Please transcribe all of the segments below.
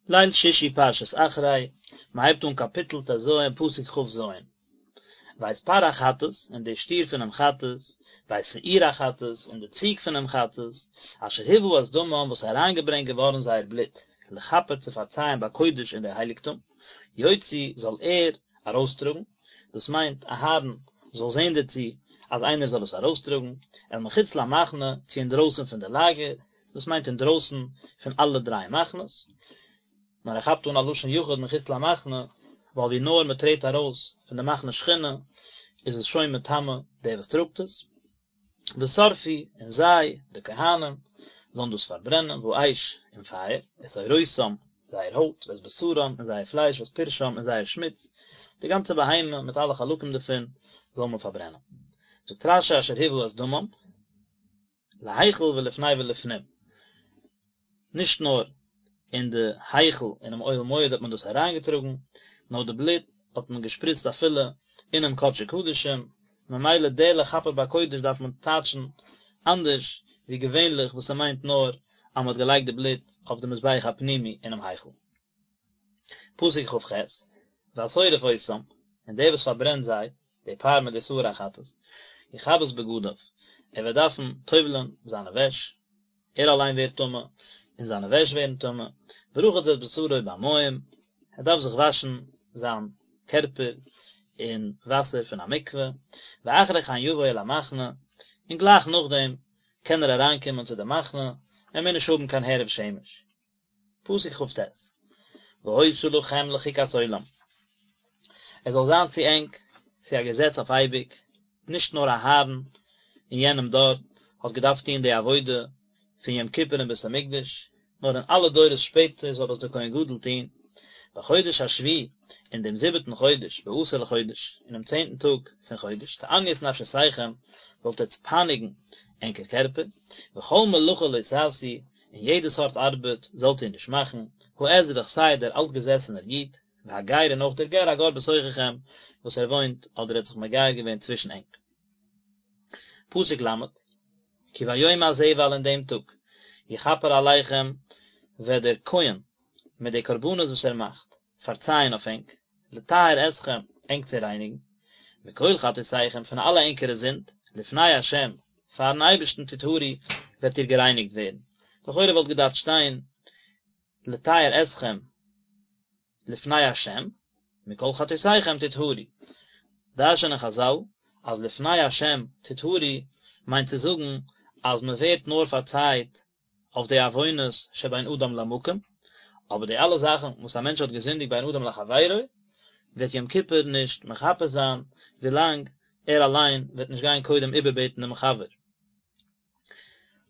ליל שישי פרשת אחרי, מען הייבט אן קאפיטל ט"ז פסוק כ"ז. ואת פר החטאת, און די שטיר פונעם חטאת, ואת שעיר החטאת, און די ציג פונעם חטאת, אשר הובא את דמם וואס איז אריינגעברענגט געווארן זייער בלוט, לכפר צו פארצייען בקודש אין די הייליגטום, יוציא זאל ער ארויסטראגן, דאס מיינט אהרן זאל זען דערצו אז איינער זאל עס ארויסטראגן, אל מחוץ למחנה, צו אינדרויסן פון די לאגער, דאס מיינט אינדרויסן פון אלע דריי מחנות, נאר ער כאפט אן א לשון יחיד מחוץ למחנה, ווייל ווי נאר מען טרעט ארויס פון די מחנה שכינה איז עס שוין מטמא דער וואס טראגט עס, ושרפו, און זיי, די כהנים, זאלן דאס פארברענען, באש, אין פייער, את עורותם, זייער הויט, ואת בשרם, און זייער פלייש, ואת פרשם, און זייער שמוץ, די גאנצע בהמה מיט אלע חלקים דערפון זאל מען פארברענען. זאגט רש"י אשר הובא את דמם. להיכל ולפני ולפנים, נישט נאר אין די היכל אינעם אוהל מועד האט מען דאס אריינגעטראגן, נאר די בלוט האט מען געשפריצט אפילו אינעם קדשי קדשים, ממילא די לכפר בקודש דארף מען טייטשן אנדערש ווי געווענליך וואס ס'מיינט נאר אז מ'האט געלייגט די בלוט אויף די מזבח הפנימי אינעם היכל. פסוק כ"ח, והשורף אותם, און דער וואס פארברענט זיי, די פר מיט די שעיר החטאת, יכבס בגדיו, ער וועט דארפן טובל'ען זיינע וועש, ער אליין ווערט טמא, און זיינע וועש ווערן טמא, ורחץ את בשרו במים, ער דארף זיך וואשן זיין קערפער אין וואסער פון א מקווה, ואחרי כן יבוא אל המחנה, און גלייך נאכדעם קען ער אריינקומען צו די מחנה, ער מוז נישט האבן קיין הערב שמש. פסוק כ"ט, והיתה לכם לחוקת עולם, עס זאל זיין צו ענק צו א געזעץ אויף אייביג, נישט נאר אהרן אין יענעם דור האט געדארפט טון די עבודה פון יום כיפור אין בית המקדש, נאר אין אלע דורות שפעטער זאל עס דער כהן גדול טון, בחודש השביעי, אין דעם זיבעטן חודש, בעשור לחודש, אינעם צענטן טאג פון חודש, תענו את נפשותיכם, זאלט עטץ פייניגן ענקער קערפער, וכל מלאכה לא תעשו, און יעדע סארט ארבעט זאלט איר נישט מאכן, האזרח סיי דער אלטגעזעסענער איד, והגר און אויך דער גר הגר בתוככם, וואס ער וואוינט אדער האט זיך מגייר געווען צווישן ענק. פסוק ל', כי ביום הזה ווייל אין דעם טאג, יכפר עליכם, וועט דער כהן, מיט די קרבנות וואס ער מאכט, פארצייען אויף ענק, לטהר אתכם, ענק צו רייניגן, מכל חטאותיכם, פון אלע ענקערע זינד, לפני השם, פארן אייבערשטן תטהרו, וועט איר גערייניגט ווערן. לכאורה וואלט געדארפט שטיין, לטהר אתכם, לפני השם, מכל חטאותיכם תטהרו. דרש'נען חזל, אז לפני השם תטהרו, מיינט צו זאגן, אז מען ווערט נאר פארצייט אויף די עוונות שבין אדם למקום, אבער די אלע זאכן וואס א מענטש האט געזינדיגט בין אדם לחבירו, וועט יום כיפור נישט מכפר זיין ווילאנג ער אליין וועט נישט גיין קודם איבערבעטן דעם חבר.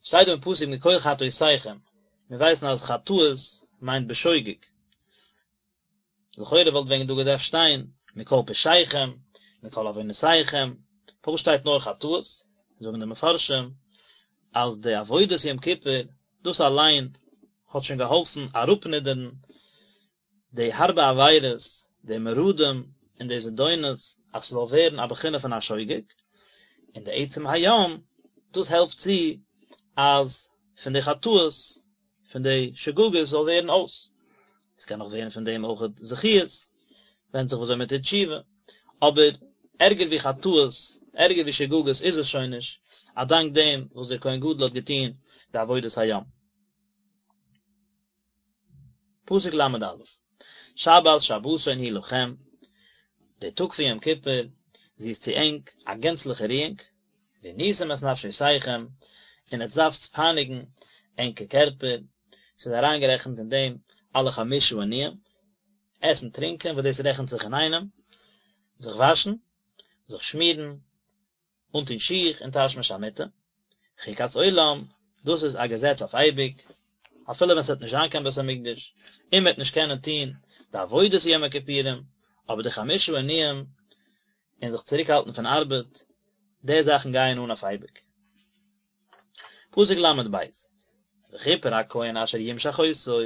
שטייט דא אין פסוק מכל חטאותיכם, מיר ווייסן אז חטאות מיינט בשוגג, לכאורה וואלט ווען דא געדארפט שטיין מכל פשעיכם, מכל עוונותיכם, פארוואס שטייט נאר חטאות? זאגן די מפרשים אז די עבודת יום כיפור דאס אליין האט שוין געהאלפן אראפנידערן די הארבע עבירות, די מרדים און די זדונות אז ס'זאל ווערן א בחינה פון א שוגג, און די עצם היום דאס העלפט צו אז פון די חטאות פון די שגגות זאל ווערן אויס, עס קען נאך ווערן פון דעם אויך זכיות, ווענדט זיך וויאזוי מען טוט תשובה, אבער ערגער ווי חטאות, ערגער ווי שגגות איז עס שוין נישט, א דאנק דעם וואס דער כהן גדול האט געטון די עבודת היום. פסוק ל"א, שבת שבתון היא לכם, דער טאג פון יום כיפור, זי איז צו ענק א גענצליכע רואונג, ועניתם את נפשותיכם, און עטס דארפטס פייניגן ענקער קערפער, ס'איז אריינגערעכנט אין דעם אלע חמשה עינויים, עסן טרינקען וואס דאס רעכנט זיך אינאיינעם, זיך וואשן, זיך שמירן, אנטון שיך און תשמיש המיטה, חוקת עולם, דאס איז א געזעץ אויף אייביג, אפילו ווען ס'וועט נישט זיין קיין בית המקדש, און מ'וועט נישט קענען טון די עבודת יום הכיפורים, אבער די חמשה עינויים און זיך צוריקהאלטן פון ארבעט, די זאכן גייען אן אויף אייביג. פסוק ל"ב, וכפר הכהן אשר ימשח אותו,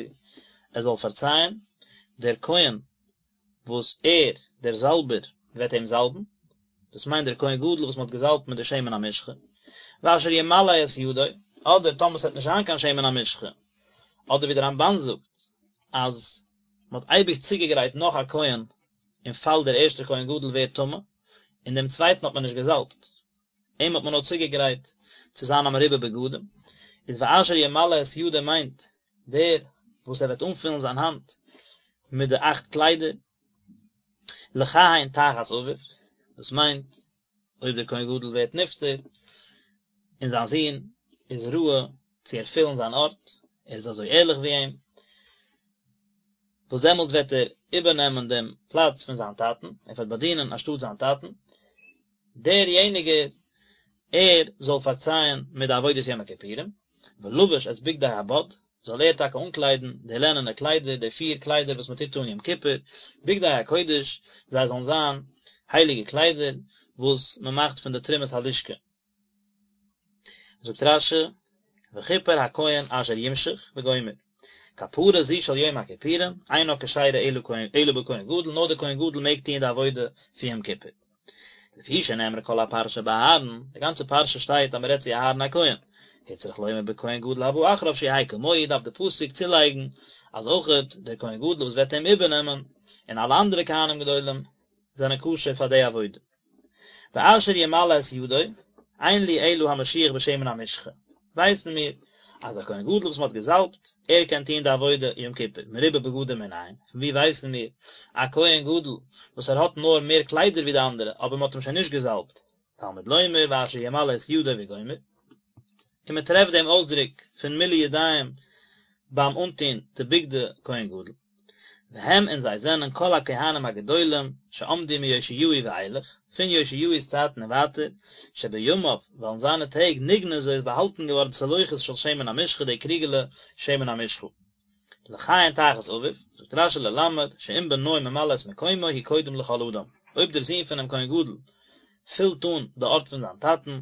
ער זאל פארצייען, דער כהן וואס ער, דער זאלבער, וועט אים זאלבן, דאס מיינט דער כהן גדול וואס מען האט געזאלבט מיט די שמן המשחה, ואשר ימלא את ידו, אדער טאמער עס וועט נישט זיין קיין שמן המשחה, אדער ווי דער רמב"ן זאגט, אז מען האט אייביג צוגעגרייט נאך א כהן אין פאל דער ערשטער כהן גדול ווערט טמא, און דעם צווייטן האט מען נישט געזאלבט, אים האט מען נאר צוגעגרייט צו זיין א מרובה בגדים, איז ואשר ימלא את ידו מיינט דער וואס ער וועט אנפילן זיין האנט מיט די אכט קליידער, לכהן תחת אביו, דאס מיינט אויב דער כהן גדול ווערט נפטר און זיין זון איז ראוי צו ערפילן זיין ארט, ער איז אזוי ערליך ווי אים, וואס דעמאלטס וועט ער איבערנעמען דעם פלאץ פון זיין טאטן, ער וועט באדינען אנשטאט זיין טאטן, דער יעניגער, ער זאל פארצייען מיט די עבודת יום הכיפורים, ולבש את בגדי הבד, זאל ער טאקע אנקליידן די לענענע קליידער, די פיר קליידער וואס מען טוט אן יום כיפור, בגדי הקודש, זיי זאלן זיין הייליגע קליידער וואס מען מאכט פון די תרומת הלשכה. זאגט רש"י, וכיפר הכהן אשר ימשח וגומר, כפרה זו של יום הכיפורים, אינה כשרה אלא בכהן גדול, נאר דער כהן גדול מעג טוען די עבודה פון יום כיפור. לפי שנאמרה כל הפרשה באהרן, די גאנצע פרשה שטייט אז מען רעדט צו אהרן הכהן, הוצרך לומר בכהן גדול הבא אחריו שיהא כמוהו, דארף די פסוק צולייגן אז אויכעט דער כהן גדול וואס וועט אים איבערנעמען, און אלע אנדערע כהנים גדולים, זענען כשר פאר די עבודה. ואשר ימלא את ידו, אין לי אלא המשוח בשמן המשחה, ווייסן מיר אז א כהן גדול וואס מען האט געזאלבט, ער קען טון די עבודה יום כיפור, מרובה בגדים מנין, פון וואו ווייסן מיר א כהן גדול וואס ער האט נאר מער קליידער ווי די אנדערע אבער מען האט אים שוין נישט געזאלבט, תלמוד לומר ואשר ימלא את ידו וגומר, און מען טרעפט דעם אויסדרוק פון מילוי ידיים ביים אנטון די בגדי כהן גדול. והם און זיי זענען כל הכהנים הגדולים שעמדו מיאשיהו ואילך, פון יאשיהו'ס צייטן און ווייטער, שבימיו, ווייל אין זיינע טעג נגנזה איז באהאלטן געווארן צלוחית של שמן המשחה די קריגעלע שמן המשחה. לכהן תחת אביו, זאגט רש"י ללמד, שאם בנו ממלא את מקומו הוא קודם לכל אדם, אויב דער זון פונעם כהן גדול פילט אן די ארט פון זיין טאטן,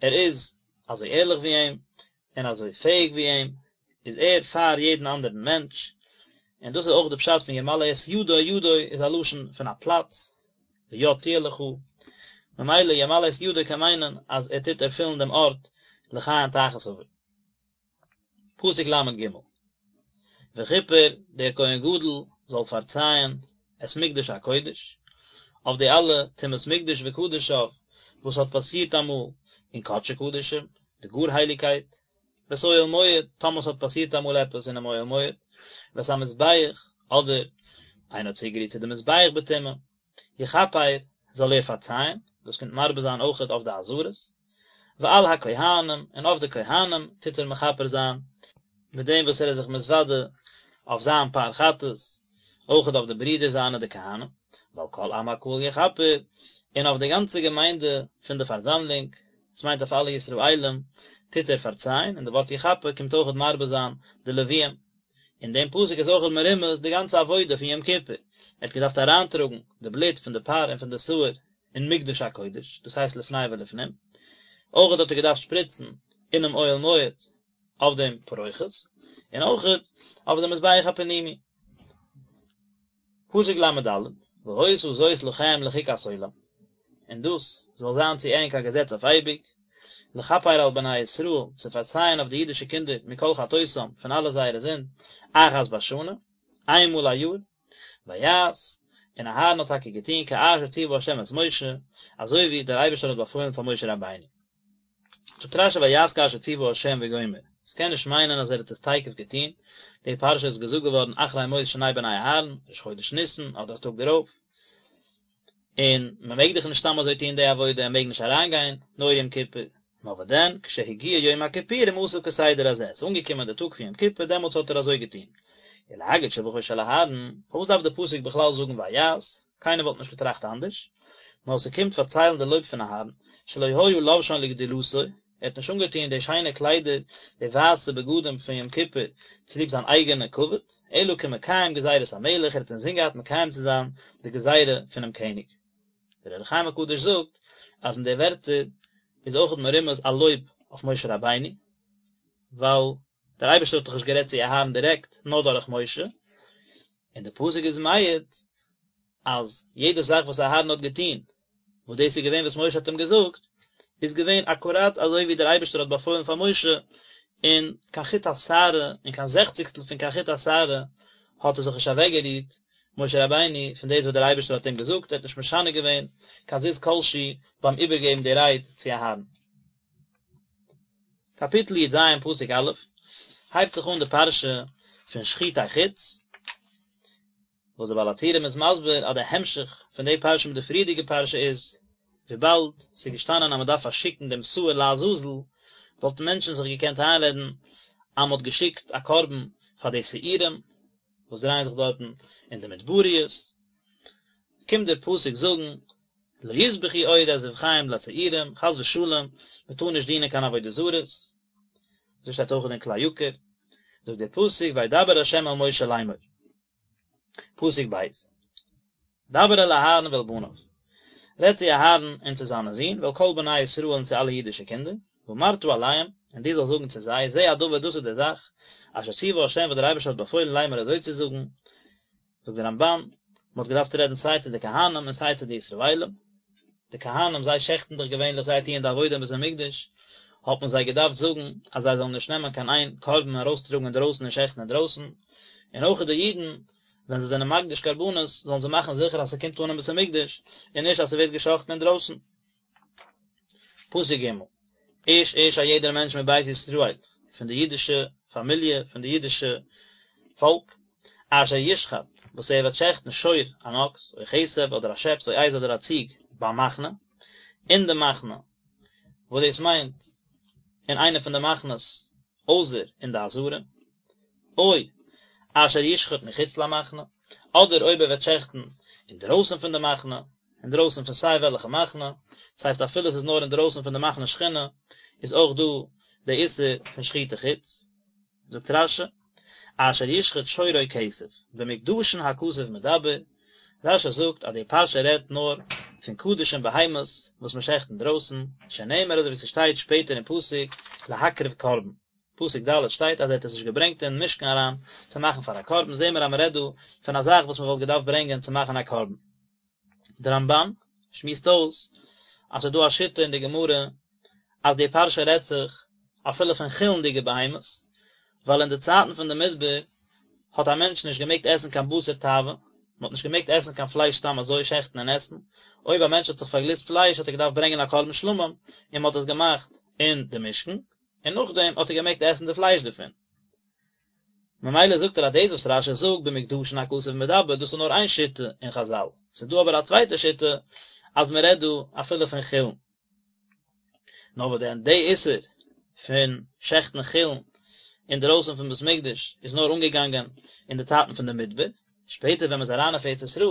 ער איז אזוי ערליך ווי אים, און אזוי פעאיג ווי אים, איז ער פאר יעדן אנדערן מענטש, און דאס איז אויך די פשט פון ימלא את ידו, ידו איז א לשון פון א פלאץ, ויד תהיה לך, ממילא ימלא את ידו קען מיינען אז ער טוט ערפילן דעם ארט לכהן תחת אביו. פסוק ל"ג, וכיפר דער כהן גדול זאל פארצייען את מקדש הקודש, אויף די אלע טומאת מקדש וקדשיו וואס האט פאסירט אמאל אין קדשי קדשים, די גאר הייליגקייט, ואת אוהל מועד, טאמער ס'האט פאסירט אמאל עפעס אינעם אוהל מועד, ואת המזבח, אדער איינער האט צוגערירט צו די מזבח בטומאה, יכפר, זאל ער פארצייען, דאס קומט מרבה זיין אויכעט אויף די עזרות, ועל הכהנים, און אויף די כהנים טוט ער מכפר זיין, מיט דעם וואס ער איז זיך מתוודה אויף זיין פר חטאת, אויכעט אויף די ברידער זיינע די כהנים, ועל כל עם הקהל יכפר, און אויף די גאנצע געמיינדע פון די פארזאמלונג, דאס מיינט אויף אלע ישראלים, טוט ער פארצייען, און די ווארט יכפר קומט אויכעט מרבה זיין די לוויים. אין דעם פסוק איז אויכעט מרומז די גאנצע עבודה פון יום כיפור, ער האט געדארפט אריינטראגן די בלוט פון די פר און פון די שעיר אין מקדש הקודש, דאס הייסט לפני ולפנים, אויכעט האט ער געדארפט שפריצן אינעם אוהל מועד אויף דעם פרוכת, און אויכעט אויף דעם מזבח הפנימי. פסוק ל"ד, והיתה זאת לכם לחוקת עולם, און דאס זאל זיין צו ענק א געזעץ אויף אייביג, לכפר על בני ישראל, צו פארצייען אויף די אידישע קינדער מכל חטאותם, פון אלע זייערע זינד, אחת בשנה, איין מאל א יאר, ויעש, און אהרן האט טאקע געטון כאשר ציווה ה' את משה, אזוי ווי דער אייבערשטער האט באפוילן פאר משה רבינו. זאגט רש"י ויעש כאשר ציווה ה' וגומר, עס קען נישט מיינען אז ער האט עס תיכף געטון, די פרשה איז געזאגט געווארן אחרי מות שני בני אהרן, ראש חודש ניסן אדער א טאג דערויף, און מען מעג דאך נישט סתם אזוי טון די עבודה, ער מעג נישט אריינגיין נאר יום כיפור, נאר וואס דען, כשהגיע יום הכיפורים עשה כסדר הזה, עס איז אנגעקומען די טאג פון יום כיפור דעמאלטס האט ער אזוי געטון. ולהגיד שבחו של אהרן, פארוואס דארף די פסוק בכלל זאגן ויעש, קיינער וואלט נישט געטראכט אנדערש, נאר ס'קומט פארציילן די לויב פון אהרן, שלא היה לובשן לגדולתו, ער האט נישט אנגעטון די שיינע קליידער, די ווייסע בגדים פון יום כיפור, צוליב זיין אייגענע כבוד, אלא כמקיים גזירת המלך, ער האט אינזין געהאט מקיים צו זיין די גזירה פונעם קעניג. דער אור החיים הקדוש זאגט אז אין די ווערטער איז אויכעט מרומז א לויב אויף משה רבינו, ווייל דער אייבערשטער האט דאך נישט גערעדט צו אהרן דירעקט, נאר דורך משה, און די פסוק איז מעיד אז יעדע זאך וואס אהרן האט געטון, וואס דאס איז געווען וואס משה האט אים געזאגט, איז געווען אקוראט אזוי ווי דער אייבערשטער האט באפוילן פאר משה, און קיין חוט השערה און קיין זעכציגסטל פון קיין חוט השערה. האט ער זיך נישט אוועקגערירט, משה רבינו, פון דאס וואס דער אייבערשטער האט אים געזאגט, ער האט נישט משנה געווען קיין זיז כל שהוא ביים איבערגעבן די רייד צו אהרן. קאפיטל י"ז פסוק א', הייבט זיך אן די פרשה פון שחוטי חוץ, וואס דער בעל הטורים איז מסביר אז די המשך פון די פרשה מיט די פריערדיגע פרשה איז, וויבאלד ס'איז געשטאנען אז מ'דארף פארשיקן דעם שעיר לעזאזל, וואלטן מענטשן זיך געקענט איינרעדן אז מ'האט געשיקט א קרבן פאר די שעירים וואס דרייען זיך דארטן אין די מדבריות, קומט דער פסוק זאגן לא יזבחו עוד את זבחיהם לשעירים, חס ושלום, מ'טאר נישט דינען קיין עבודה זרות, אזוי שטייט אויך אין כלי יקר, זאגט דער פסוק וידבר ה' אל משה לאמור. פסוק ב', דבר אל אהרן ואל בניו, רעד צו אהרן און צו זיינע זין, ואל כל בני ישראל און צו אלע אידישע קינדער, ואמרת אליהם, און דו זאלסט זאגן צו זיי, זה הדבר דאס איז די זאך, אשר ציווה ה' וואס דער אייבערשטער האט באפוילן לאמור אזוי צו זאגן, זאגט דער רמב"ן, מען האט געדארפט רעדן סיי צו די כהנים און סיי צו די ישראלים, די כהנים זיי שעכטן דאך געווענליך זיי טוען די עבודה אין בית המקדש, האט מען זיי געדארפט זאגן אז זיי זאלן נישט נעמען קיין איין קרבן און ארויסטראגן אינדרויסן און שעכטן אינדרויסן, און אויך די אידן ווען זיי זענען מקדיש קרבנות זאלן זיי מאכן זיכער אז ס'קומט אן אין בית המקדש און נישט אז ס'ווערט געשאכטן אינדרויסן. פסוק ג', איש איש א יעדער מענטש מבית ישראל, פון די אידישע פאמיליע, פון די אידישע פאלק, אשר ישחט, וואס ער וועט שעכטן שור, אן אקס, או כשב, אדער א שעפס, או עז, אדער א ציג, במחנה, אין די מחנה, וואס דאס מיינט, אין איינע פון די מחנות, אויסער אין די עזרה. או אשר ישחט מחוץ למחנה, אדער אויב ער וועט שעכטן אינדרויסן פון די מחנה, אינדרויסן פון סיי וועלכע מחנה, דאס הייסט אפילו עס איז נאר אינדרויסן פון די מחנה שכינה, איז אויך דא די איסור פון שחוטי חוץ. זאגט רש"י, אשר ישחט שור או כשב, במוקדשין הכתוב מדבר, רש"י זאגט אז די פרשה רעדט נאר פון קדשים בהמות וואס מען שעכט אינדרויסן, שנאמר אזוי ווי ס'שטייט שפעטער אין פסוק להקריב קרבן, פסוק ד' שטייט אז ער האט עס נישט געברענגט אין משכן אריין צו מאכן פאר א קרבן, זעהן מיר אז מען רעדט דא פון א זאך וואס מען וואלט געדארפט ברענגען צו מאכן א קרבן. דער רמב"ן שמועסט אויס אז ס'איז דא א שיטה אין די גמרא אז די פרשה רעדט זיך אפילו פון חולין'דיגע בהמות, ווייל אין די צייטן פון די מדבר האט א מענטש נישט געמעגט עסן קיין בשר תאווה, מען האט נישט געמעגט עסן קיין פלייש סתם אזוי, שעכטן און עסן, אויב א מענטש האט זיך פארגליסט פלייש האט ער געדארפט ברענגען א קרבן שלמים און מען האט עס געמאכט אין די משכן, און נאכדעם האט ער געמעגט עסן די פלייש דערפון. ממילא זאגט ער אז דאס וואס רש"י זאגט במוקדשין הכתוב מדבר דאס איז נאר איין שיטה אין חז"ל, ס'איז דא אבער א צווייטע שיטה אז מען רעדט דא אפילו פון חולין. נאר וואס דען די איסור פון שעכטן חולין אינדערויסן פון בית מקדש איז נאר אנגעגאנגען אין די צייטן פון די מדבר, שפעטער ווען מען איז אריין אויף ארץ ישראל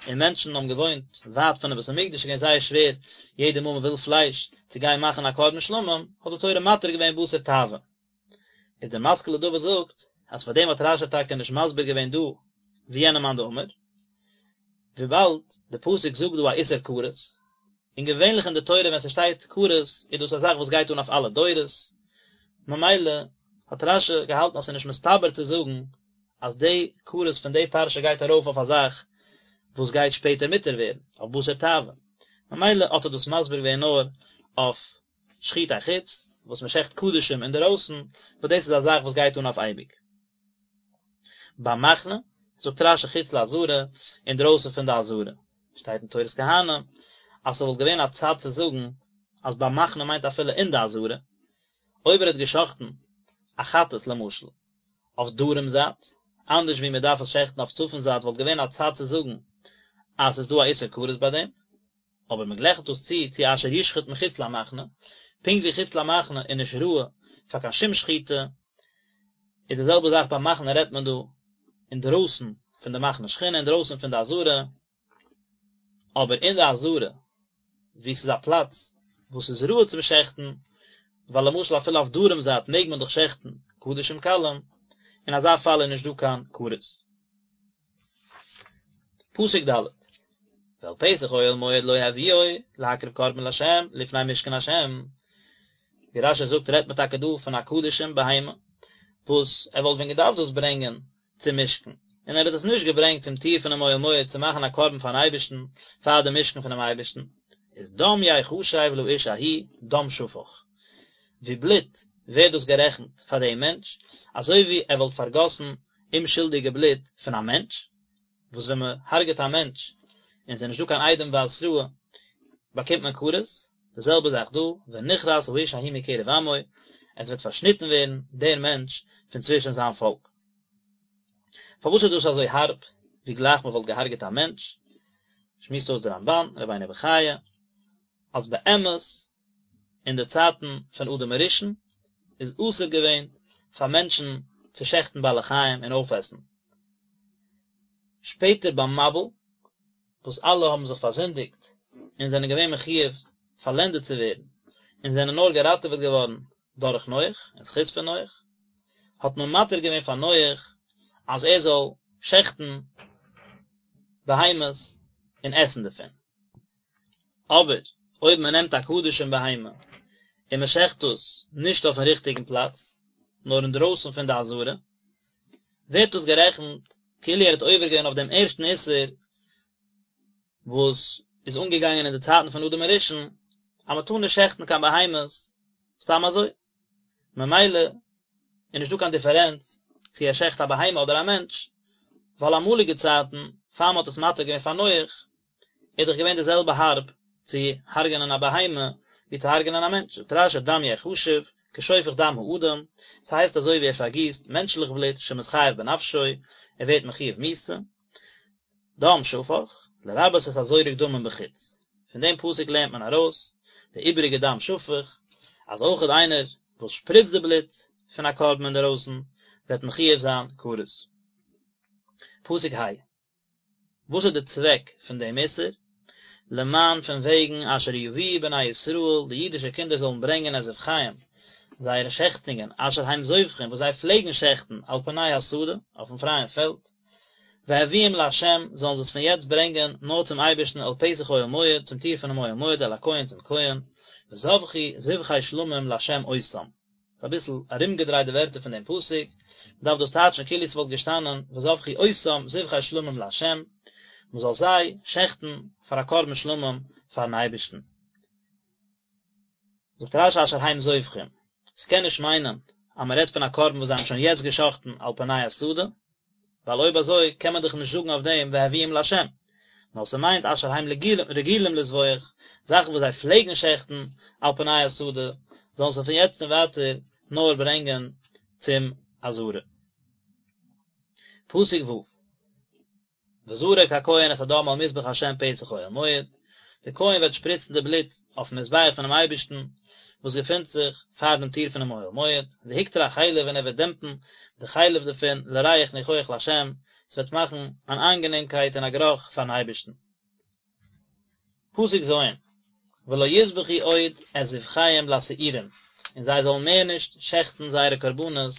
און מענטשן האבן געוואוינט ווייט פונעם בית המקדש איז געווען זייער שווער יעדע מאל מען וויל פלייש צו גיין מאכן א קרבן שלמים, האט די תורה מתיר געווען בשר תאווה. איז דער משכיל לדוד זאגט אז פאר דעם האט רש"י טאקע נישט מסביר געווען דא ווי יענע מאן דאמר, וויבאלד די פסוק זאגט דא א איסור כרת, און געווענליך אין די תורה ווען ס'שטייט כרת איז דאס א זאך וואס גייט אן אויף אלע דורות, ממילא האט רש"י געהאלטן אז ס'איז נישט מסתבר צו זאגן אז די כרת פון די פרשה גייט ארויף אויף א זאך וואס גייט שפעטער מותר ווערן, אויף בשר תאווה, ממילא האט ער דאס מסביר געווען נאר אויף שחוטי חוץ, וואס מען שעכט קדשים אינדערויסן, וואס דאס איז א זאך וואס גייט אן אויף אייביג. במחנה, זאגט רש"י חוץ לעזרה, אינדרויסן פון די עזרה. שטייט אין תורת כהנים, אז ס'וואלט געווען א צד צו זאגן אז במחנה מיינט אפילו אין די עזרה, אויב ער האט געשאכטן א חטאת למשל, אויף דרום זייט, אנדערש ווי מען דארף עס שעכטן אויף צפון זייט וואלט געווען א צד צו זאגן אז ס'איז דא א איסור כרת ביי דעם, אבער מען גלייכט דאס צו צו אשר ישחט מחוץ למחנה, פונקט ווי חוץ למחנה איז נישט ראוי פאר קיין שום שחיטה, איז די זעלבע זאך במחנה רעדט מען דא אינדרויסן פון די מחנה שכינה אינדרויסן פון די עזרה, אבער אין די עזרה וואו ס'איז א פלאץ וואס איז ראוי צום שעכטן, ווייל למשל אפילו אויף דרום זייט מעג מען דאך שעכטן קדשים קלים, אין אזא פאל איז נישט דא קיין כרת. פסוק ד' ואל פתח אוהל מועד לא הביאו להקריב קרבן לה' לפני משכן ה', ווי רש"י זאגט רעדט מען טאקע דא פון א קדשים בהמה וואס ער וואלט ווען געדארפט דאס ברענגען צום משכן, און ער האט עס נישט געברענגט צום טיר פונעם אוהל מועד צו מאכן א קרבן פארן אייבערשטן פאר דעם משכן פונעם אייבערשטן, איז דם יחשב לאיש ההוא דם שפך, ווי בלוט ווערט דאס גערעכנט פאר דעם מענטש, אזוי ווי ער וואלט פארגאסן. אומשולדיגע בלוט פון א מענטש, וואס ווען מען הרג'עט א מענטש און ס'איז נישטא קיין עדים והתראה באקומט מען כרת, די זעלבע זאך דא, ונכרת האיש ההוא מקרב עמו, עס וועט פארשניטן ווערן דער מענטש פון צווישן זיין פאלק. פארוואס איז דאס אזוי הארב, ווי גלייך מען וואלט געהארגעט א מענטש? שמועסט אויס דער רמב"ן, רבינו בחיי, אז באמת אין די צייטן פון אדם הראשון איז אסור געווען פאר מענטשן צו שעכטן בעלי חיים און אויפעסן. שפעטער ביים מבול, וואס אלע האבן זיך פארזינדיגט און זענען געווען מחויב פארלענדעט צו ווערן, און זענען נאר געראטעוועט געווארן דורך נח, אין זכות פון נח, האט מען מתיר געווען פאר נח אז ער זאל שעכטן בהמות און עסן דערפון. אבער אויב מען נעמט א קדשים בהמה און מען שעכט עס נישט אויפן ריכטיגן פלאץ, נאר אינדרויסן פון די עזרה, ווערט דאס גערעכנט כאילו ער האט עובר געווען אויף דעם ערשטן איסור וואס איז אנגעגאנגען אין די צייטן פון אדם הראשון, אז מען טאר נישט שעכטן קיין בהמות סתם אזוי. ממילא איז נישטא קיין דיפערענץ צו ער שעכט א בהמה אדער א מענטש, ווייל אמאליגע צייטן, פאר מען האט עס מתיר געווען פאר נח, איז דאך געווען די זעלבע הארב צו הרג'נען א בהמה ווי צו הרג'נען א מענטש, זאגט רש"י דם יחשב כשופך דם האדם, ס'הייסט אזוי ווי ער פארגיסט מענטשליך בלוט שמתחייב בנפשו, ער ווערט מחויב מיתה, דם שפך, לרבות את הזורק דמים בחוץ, פון דעם פסוק לערנט מען ארויס די איבעריגע דם שפך, אז אויכעט איינער וואס שפריצט די בלוט פון א קרבן אינדערויסן וועט מחויב זיין כרת. פסוק ה'. וואס איז די צוועק פון דעם איסור? למען פון וועגן אשר יביאו בני ישראל, די אידישע קינדער זאלן ברענגען את זבחיהם, זייערע שעכטונגען, אשר הם זובחים, וואס זיי פלעגן שעכטן, על פני השדה, אויפן פרייען פעלד, והביאום לה', זאלן זיי עס פון יעצט ברענגען נאר צום אייבערשטן אל פתח אוהל מועד, צום טיר פונעם אוהל מועד, אל הכהן צום כהן, וזבחו זבחי שלמים לה' אותם. ס'איז אביסל ארומגעדרייט די ווערטער פון דעם פסוק, מ'דארף דאס טייטשן כאילו ס'וואלט געשטאנען וזבחו אותם זבחי שלמים לה', מ'זאל זיי שעכטן פאר א קרבן שלמים פארן אייבערשטן. זאגט רש"י אשר הם זובחים, ס'קען נישט מיינען אז מ'רעדט פון א קרבן וואס זיי האבן שוין יעצט געשאכטן על פני השדה, ווייל אויב אזוי קען מען דאך נישט זאגן אויף דעם והביאום לה', נאר ס'מיינט אשר הם רגילים לזבוח, זאכן וואס זיי פלעגן שעכטן על פני השדה, זאלן זיי פון יעצט און ווייטער נאר ברענגען צום עזרה. פסוק ו'. וזרק הכהן את הדם על מזבח ה' פתח אוהל מועד, דער כהן וועט שפריצן די בלוט אויפן מזבח פונעם אייבערשטן, וואס געפינט זיך פאר דעם טיר פונעם אוהל מועד, והקטיר החלב און ער וועט דעמפן די חלב דערפון לריח ניחוח לה', עס וועט מאכן אן איינגענעמקייט און א גערוך פארן אייבערשטן. פסוק ז', ולא יזבחו עוד את זבחיהם לשעירים, און זיי זאלן מער נישט שעכטן זייערע קרבנות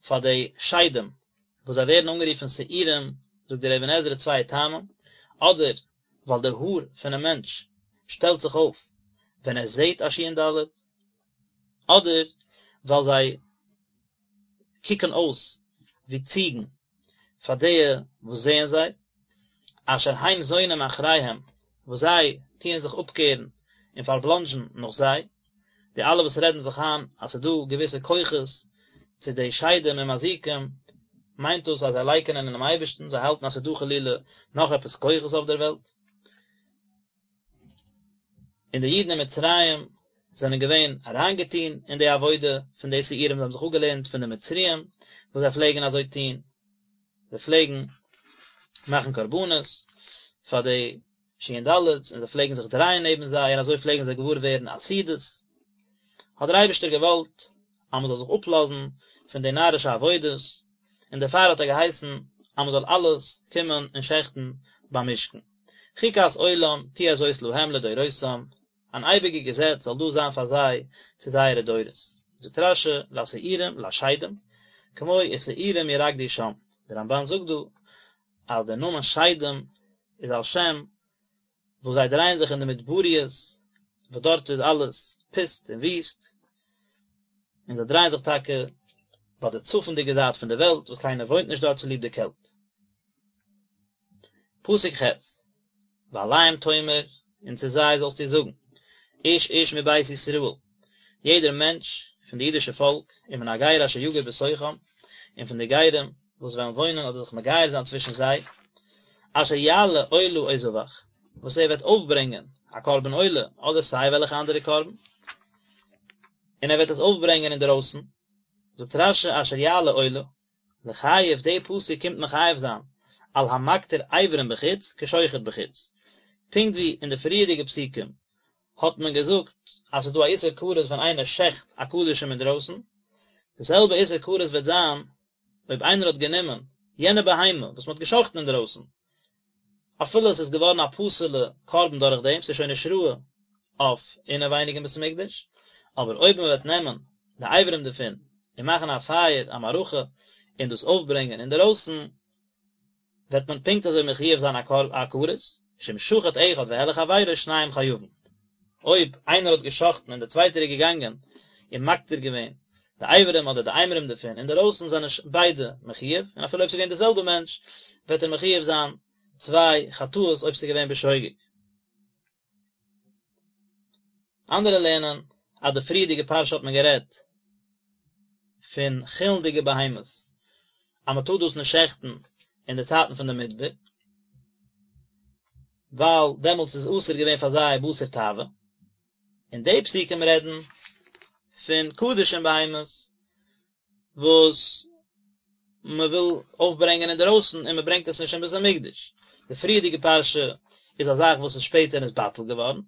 פאר די שדים, וואס זיי ווערן אנגערופן שעירים, זאגט דער אבן עזרא צוויי טעמים, אדער ווייל די האר פונעם מענטש שטעלט זיך אויף ווען ער זעט א שין דלת, אדער ווייל זיי קוקן אויס ווי ציגן פאר די וואס זעען זיי, אשר הם זונים אחריהם, וואס זיי טוען זיך אפקערן און פארבלאנדזשן נאך זיי, די אלע וואס רעדן זיך איין אז ס'איז דא געוויסע כוחות צו די שדים און מזיקים, מיינט דאס אז זיי לייקענען אינעם אייבערשטן, זיי האלטן אז ס'איז דא חלילה נאך עפעס כוחות אויף דער וועלט. און די אידן אין מצרים זענען געווען אריינגעטון אין די עבודה פון די שעירים, זיי האבן זיך אפגעלערנט פון די מצריים וואס זיי פלעגן אזוי טון, זיי פלעגן מאכן קרבנות פאר די שין דלת'ס און זיי פלעגן זיך דרייען נעבן זיי און אזוי פלעגן זיי געוואר ווערן עתידות, האט דער אייבערשטער געוואלט אז מען זאל זיך אפלאזן פון די נארישע עבודות, און דערפאר האט ער געהייסן אז מען זאל אלעס קומען און שעכטן ביים משכן. חוקת עולם תהיה זאת להם לדורותם, אן אייביגע געזעץ זאל דאס זיין פאר זיי צו זייערע דורות. זאגט רש"י, לשעירים, לשדים, כמו ושעירים ירקדו שם, דער רמב"ן זאגט דא אז דער נאמען שדים איז על שם וואס זיי דרייען זיך אין די מדבריות וואס דארט איז אלעס פוסט און וויסט, און זיי דרייען זיך טאקע ביי די צפונדיגע זייט פון די וועלט וואס קיינער וואוינט נישט דארט צוליב די קעלט. פסוק ח', ואליהם תאמר, און צו זיי זאלסטו זאגן, איש איש מבית ישראל, יעדער מענטש פון די אידישע פאלק, ומן הגר אשר יגור בתוכם, און פון די גרים. וואס וועלן וואוינען אדער זיך מגייר זיין צווישן זיי, אשר יעלה עולה או זבח, וואס ער וועט אויפברענגען א קרבן עולה אדער סיי וועלכע אנדערע קרבן, און ער וועט עס אויפברענגען אינדערויסן, זאגט רש"י אשר יעלה עולה, לחייב די פסוק קומט מחייב זיין על המקטיר אברים בחוץ כשוחט בחוץ, פונקט ווי אין די פריערדיגע פסוקים האט מען געזאגט אז ס'איז דא א איסור כרת ווען איינער שעכט א קדשים אינדרויסן, די זעלבע איסור כרת וועט זיין אויב איינער האט גענומען יענע בהמה וואס מ'האט געשחט'ן אינדרויסן, אפילו עס איז געווארן א פסול'ע קרבן דורך דעם, ס'איז שוין נישט ראוי אויף אינעווייניג אין בית המקדש, אבער אויב מ'וועט נעמען די אברים דערפון און מאכן א פייער, א מערכה, און דאס אויפברענגען אינדערויסן, וועט מען פונקט אזוי מחויב זיין א כרת, שאם שחט אחד והעלה חבירו שניהם חייבין. אויב איינער האט גע'שחט'ן און דער צווייטער איז געגאנגען און מקטיר געווען די אברים אדער די אימורים דערפון אינדערויסן זענען ביידע מחויב, און אפילו אויב ס'איז געווען דער זעלבער מענטש וועט ער מחויב זיין צוויי חטאות אויב ס'איז געווען בשוגג. אנדערע לערנען אז די פריערדיגע פרשה האט מען גערעדט פון חולין'דיגע בהמות אז מען טאר דאס נישט שעכטן אין די צייטן פון די מדבר, ווייל דעמאלטס איז אסור געווען פאר זיי בשר תאווה, און די פסוקים רעדן פון קדשים בהמות וואס מען וויל אויפברענגען אינדערויסן און מען ברענגט עס נישט אין בית המקדש. די פריערדיגע פרשה איז א זאך וואס איז שפעטער נתבטל געווארן,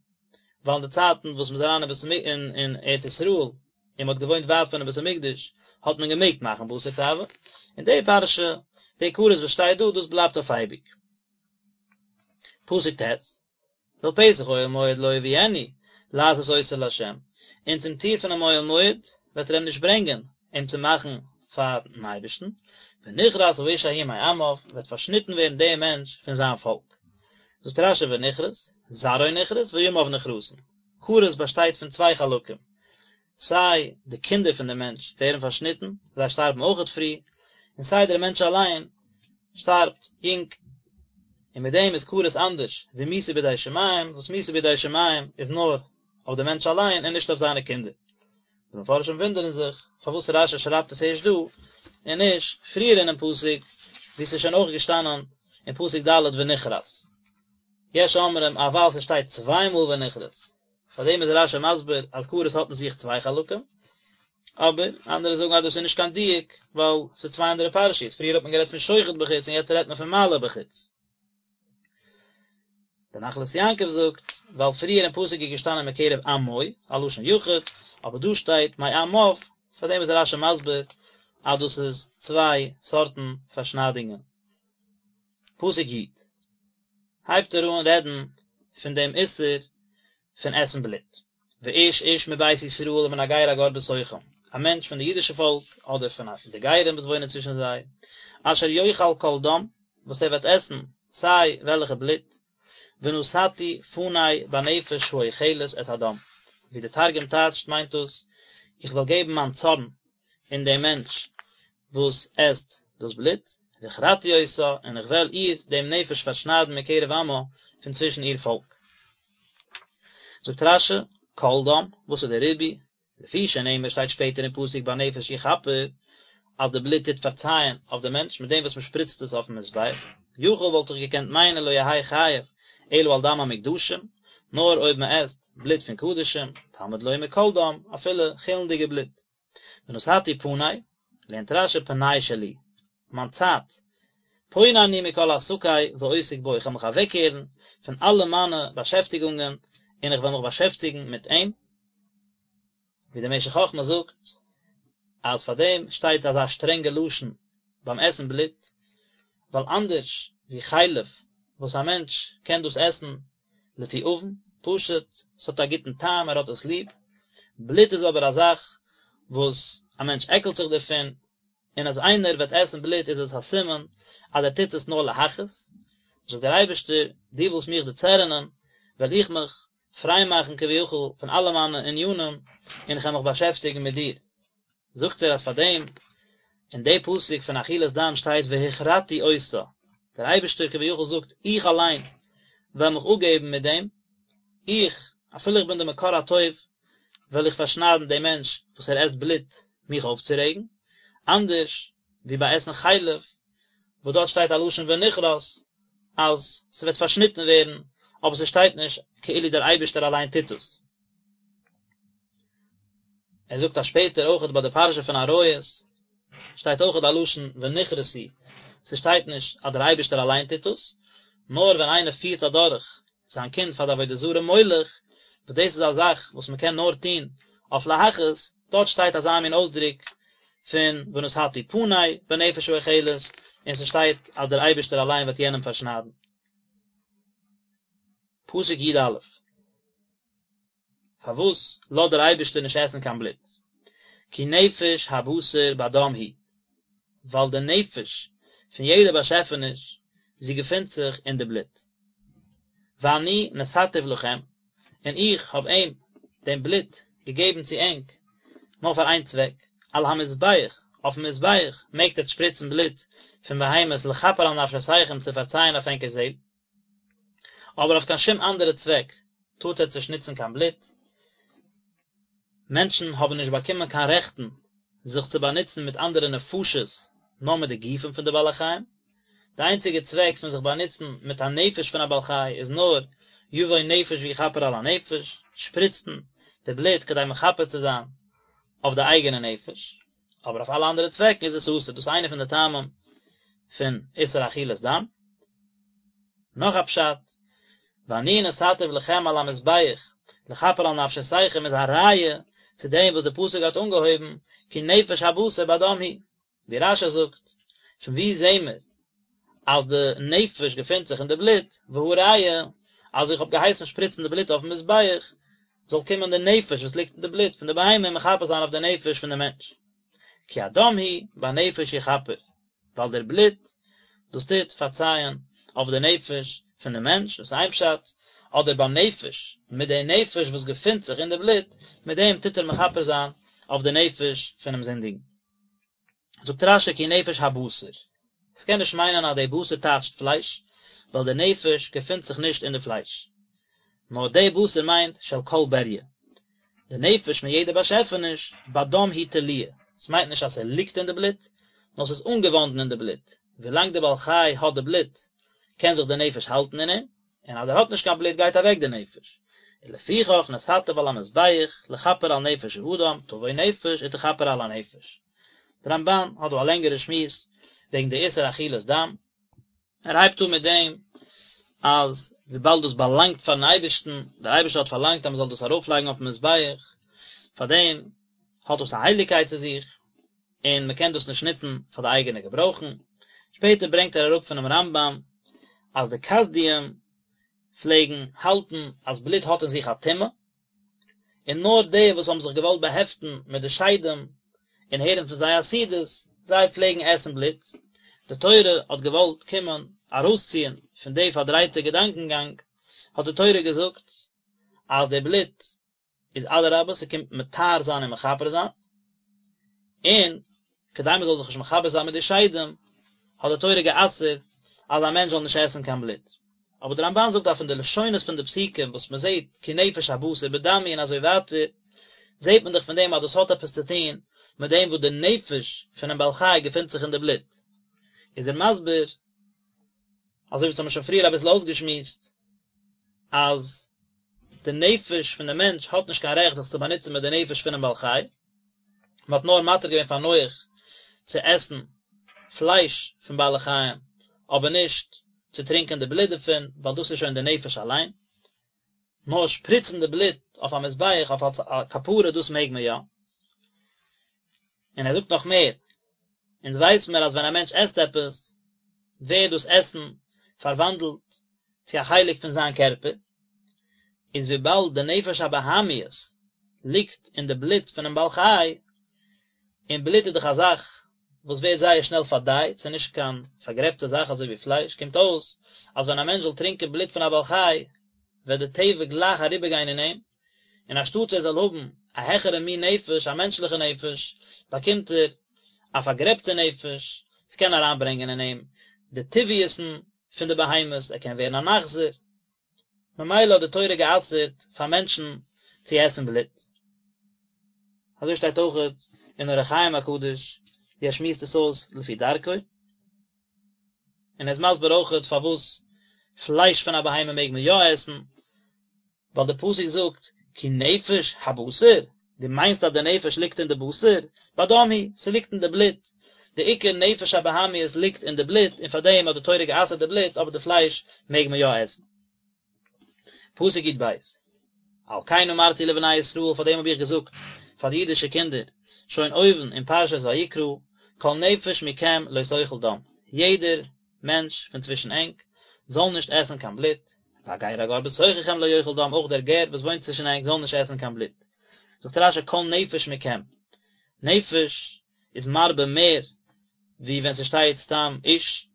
ווייל אין די צייטן וואס מען איז אריין אין בית המ אין ארץ ישראל און מען האט געוואוינט ווייט פונעם בית המקדש האט מען געמעגט מאכן בשר תאווה, און די פרשה, די כרת וואס שטייט דא, דאס בלייבט אויף אייביג. פסוק ט'. ואל פתח אוהל מועד לא יביאנו לעשות אותו לה', און צום טיר פונעם אוהל מועד וועט ער אים נישט ברענגען אים צו מאכן פארן אייבערשטן, ונכרת האיש ההוא מעמיו, וועט פארשניטן ווערן דער מענטש פון זיין פאלק. זאגט רש"י ונכרת, זרעו נכרת וימיו נכרתין, כרת באשטייט פון צוויי חלקים, סיי די קינדער פון דעם מענטש ווערן פארשניטן, זיי שטארבן אויכעט פרי, און סיי דער מענטש אליין שטארבט יונג. און מיט דעם איז כרת אנדערש ווי מיתה בידי שמים, וואס מיתה בידי שמים איז נאר אויף דעם מענטש אליין און נישט אויף זיינע קינדער. די מפרשים וואונדערן זיך פארוואס רש"י שרייבט עס ערשט דא, און נישט פריער אינעם פסוק, וואו ס'איז שוין אויך געשטאנען אין פסוק ד' ונכרת. יש אומרים אז ווייל ס'שטייט צוויי מאל ונכרת, פאר דעם איז רש"י מסביר אז כרת האט אין זיך צוויי חלקים, אבער אנדערע זאגן אז דאס איז נישט קיין דיוק, ווייל ס'איז צוויי אנדערע פרשיות, פריער האט מען גערעדט פון שוחט בחוץ און יעצט רעדט מען פון מעלה בחוץ. דער נחלת יעקב זאגט, ווייל פריער אין פסוק איז געשטאנען מקרב עמו, א לשון יחיד, אבער דא שטייט מעמיו, פאר דעם איז רש"י מסביר אז דאס איז צוויי סארטן פארשניידונגען. פסוק י' הייבט ער אן רעדן פון דעם איסור פון עסן בלוט, ואיש איש מבית ישראל ומן הגר הגר בתוכם, א מענטש פון די אידישע פאלק אדער פון די גרים וואס וואוינען צווישן זיי, אשר יאכל כל דם, וואס ער וועט עסן סיי וועלכע בלוט, ונתתי פני בנפש האוכלת את הדם, ווי די תרגום טייטשט מיינט דאס, איך וועל געבן מיין צארן אין דעם מענטש וואס עסט דאס בלוט, והכרתי אותה, און איך וועל איר, דעם נפש, פארשניידן מקרב עמה, פון צווישן איר פאלק. זאגט רש"י, כל דם, וואס איז דער ריבוי? לפי שנאמר שטייט שפעטער אין פסוק בנפש יכפר, אז די בלוט טוט פארצייען אויף די מענטש מיט דעם וואס מען שפריצט עס אויפן מזבח, יכול וואלט איך געקענט מיינען לא יהא חייב אלא על דם המוקדשים, נאר אויב מען עסט בלוט פון קדשים, תלמוד לומר כל דם, אפילו חולין'דיגע בלוט. ונתתי פני, לערנט רש"י פנאי שלי, מיין צייט, פונה אני מכל עסקי ועוסק בו, איך וועל מיך אוועקקערן פון אלע מיינע באשעפטיגונגען און איך וועל מיך באשעפטיגן מיט אים, ווי דער משך חכמה זאגט אז פאר דעם שטייט אזא שטרענגע לשון ביים עסן בלוט, ווייל אנדערש ווי חלב וואס א מענטש קען דאס עסן לתיאבון, פשוט, ס'האט א גוטן טעם, ער האט עס ליב. בלוט איז אבער א זאך וואס א מענטש עקלט זיך דערפון, און אז איינער וועט עסן בלוט איז עס א סימן אז ער טוט עס נאר להכעיס. זאגט דער אייבערשטער, דו ווילסט מיך דערצערענען, וועל איך מיך פריי מאכן כביכול פון אלע מיינע ענינים, און איך וועל מיך באשעפטיגן מיט דיר. זאגט ער אז פאר דעם אין די פסוק פון אכילת דם שטייט והכרתי אותה, דער אייבערשטער כביכול זאגט איך אליין וועל מיך אפגעבן מיט דעם, איך, אפילו איך בין די מקור הטוב, וועל איך פארשניידן דעם מענטש וואס ער עסט בלוט מיך אויפצורעגן, אנדערש ווי ביי עסן חלב. וואס דארט שטייט א לשון ונכרת אז ס'וועט פארשניטן ווערן, אבער ס'שטייט נישט כאילו דער אייבערשטער אליין טוט עס. ער זאגט אז שפעטער אויכעט ביי די פרשה פון עריות שטייט אויכעט א לשון ונכרתו, ס'שטייט נישט אז דער אייבערשטער אליין טוט עס, נאר ווען איינער פירט אדורך זיין קינד פאר די עבודה זרה מולך, וואס דאס איז א זאך וואס מען קען נאר טון אויף להכעיס, דארט שטייט אזא מין אויסדרוק פון ונתתי פני בנפש האוכלת, און ס'שטייט אז דער אייבערשטער אליין וועט יענעם פארשניידן. פסוק י א. פארוואס לאזט דער אייבערשטער נישט עסן קיין בלוט? כי נפש הבשר בדם היא, ווייל די נפש פון יעדע באשעפעניש, זי געפינט זיך אין די בלוט. ואני נתתיו לכם, און איך האב אים, דעם בלוט, געגעבן צו ענק, נאר פאר איין צוועק, על המזבח, אויפן מזבח מעגט עטץ שפריצן בלוט פון בהמות לכפר על נפשותיכם צו פארצייען אויף ענקער זעל. אבער אויף קיין שום אנדערע צוועק טארט עטץ נישט נוצן קיין בלוט. מענטשן האבן נישט באקומען קיין רעכטן זיך צו באנוצן מיט אנדערע נפשות נאר מיט די גופים פון די בעלי חיים. די איינציגע צוועק פון זיך באנוצן מיט א נפש פון א בעל חי איז נאר יבוא נפש ויכפר על הנפש, שפריצן די בלוט כדי מכפר צו זיין אויף די אייגענע נפש, אבער אויף אלע אנדערע צוועקן איז עס אסור, דאס איז איינע פון די טעמים פון איסור אכילת דם. נאך א פשט, ואני נתתיו לכם על המזבח לכפר על נפשותיכם איז א ראיה צו דעם וואס די פסוק האט אנגעהויבן כי נפש הבשר בדם היא, ווי רש"י זאגט, פון וואו זעהן מיר אז די נפש געפינט זיך אין די בלוט, והא ראיה אז איך האב געהייסן שפריצן די בלוט אויפן מזבח, זאל קומען די נפש וואס ליגט אין די בלוט פון די בהמה און מכפר זיין אויף די נפש פון די מענטש. כי הדם הוא בנפש יכפר, ווייל דער בלוט דאס טוט פארצייען אויף די נפש פון די מענטש, דאס איז איין פשט, אדער בנפש, מיט די נפש וואס געפינט זיך אין די בלוט, מיט דעם טוט ער מכפר זיין אויף די נפש פונעם זינדיגן. זאגט רש"י כי נפש הבשר, עס קען נישט מיינען אז די בשר טייטשט פלייש, ווייל די נפש געפינט זיך נישט אין די פלייש, נאר די בשר מיינט של כל בריה, די נפש פון יעדע באשעפעניש, בדם היא תלויה, עס מיינט נישט אז ס'ליגט אין די בלוט, נאר ס'איז אנגעוואנדן אין די בלוט, ווילאנג די בעל חי האט די בלוט קען זיך די נפש האלטן אין אים, און אז ער האט נישט קיין בלוט גייט אוועק די נפש, ולפיכך נתתיו על המזבח לכפר על נפש האדם, תבוא נפש ותכפר על הנפש. די רמב"ן האט דא א לענגערע שמועס וועגן די איסור אכילת דם, ער הייבט אן מיט דעם אז וויבאלד דאס באלאנגט פארן אייבערשטן, דער אייבערשטער האט פארלאנגט אז מען זאל דאס ארויפלייגן אויפן מזבח, פאר דעם האט דאס א הייליגקייט צו זיך, און מען קען דאס נישט נוצן פאר די אייגענע געברויכן. שפעטער ברענגט ער אראפ פונעם רמב"ם אז די כשדים פלעגן האלטן אז בלוט האט אין זיך א טומאה, און נאר די וואס האבן זיך געוואלט באהעפטן מיט די שדים און הערן פון זיי עתידות, זיי פלעגן עסן בלוט. די תורה האט געוואלט קומען ארויסציען פון די פארדרייטע געדאנקענגאנג, האט די תורה געזאגט אז די בלוט איז אדרבה ס'קומט מטהר זיין און מכפר זיין, און כדי מ'זאל זיך נישט מחבר זיין מיט די שדים, האט די תורה גע'אסר'ט אז א מענטש זאל נישט עסן קיין בלוט. אבער די רמב"ן זאגט אז פון די לשונות פון די פסוקים וואס מ'זעט כי נפש הבשר בדם היא און אזוי ווייטער, זעט מען דאך פון דעם אז דאס האט עפעס צו טון מיט דעם וואס די נפש פונעם בעל חי געפינט זיך אין די בלוט. איז ער מסביר, אזוי ווי אונז האבן שוין פריער אביסל אויסגעשמועסט, אז די נפש פון די מענטש האט נישט קיין רעכט זיך צו באנוצן מיט די נפש פונעם בעל חי, מען האט נאר מתיר געווען פאר נח צו עסן פלייש פון בעלי חיים, אבער נישט צו טרינקען די בלוט דערפון, ווייל דאס איז שוין די נפש אליין. נאר שפריצן די בלוט אויף א מזבח אויף אלס א כפרה דאס מעג מען יא. און ער זאגט נאך מער, אונז ווייס מיר אז ווען א מענטש עסט עפעס, ווערט דאס עסן פארוואנדלט צו א חלק פון זיין קערפער, איז וויבאלד די נפש הבהמיות ליגט אין די בלוט פונעם בעל חי, און בלוט איז דאך א זאך וואס ווערט זייער שנעל פארדייט, ס'איז נישט קיין פארגרעבטע זאך אזוי ווי פלייש, קומט אויס אז ווען א מענטש זאל טרינקען בלוט פון א בעל חי, וועט די טבע גלייך אריבערגיין אין אים, און אנשטאט ער זאל האבן א העכערע מין נפש, א מענטשליכע נפש, באקומט ער א פארגרעבטע נפש, ס'קען אריינברענגען אין אים די טבעיות'ן פון די בהמות, ער קען ווערן אן אכזר. ממילא האט די תורה גע'אסר'ט פאר מענטשן צו עסן בלוט. אזוי שטייט אויכעט אין אור החיים הקדוש, ווי ער שמועסט עס אויס לפי דרכו. און ער איז מסביר אויכעט פארוואס פלייש פון א בהמה מעג מען יא עסן, ווייל די פסוק זאגט כי נפש הבשר, דו מיינסט אז די נפש ליגט אין די בשר? בדם היא, ס'ליגט אין די בלוט, די עיקר נפש הבהמיות ליגט אין די בלוט, און פארדעם האט די תורה גע'אסר'ט די בלוט, אבער די פלייש מעג מען יא עסן. פסוק י"ב, על כן אמרתי לבני ישראל, פאר דעם האב איך געזאגט פאר די אידישע קינדער, שוין אויבן אין פרשת ויקרא, כל נפש מכם לא תאכל דם, יעדער מענטש פון צווישן ענק זאל נישט עסן קיין בלוט, והגר הגר בתוככם לא יאכל דם, אויך דער גר וואס וואוינט צווישן ענק זאל נישט עסן קיין בלוט. זאגט רש"י כל נפש מכם, נפש איז מרבה מער ווי ווען ס'שטייט סתם איש,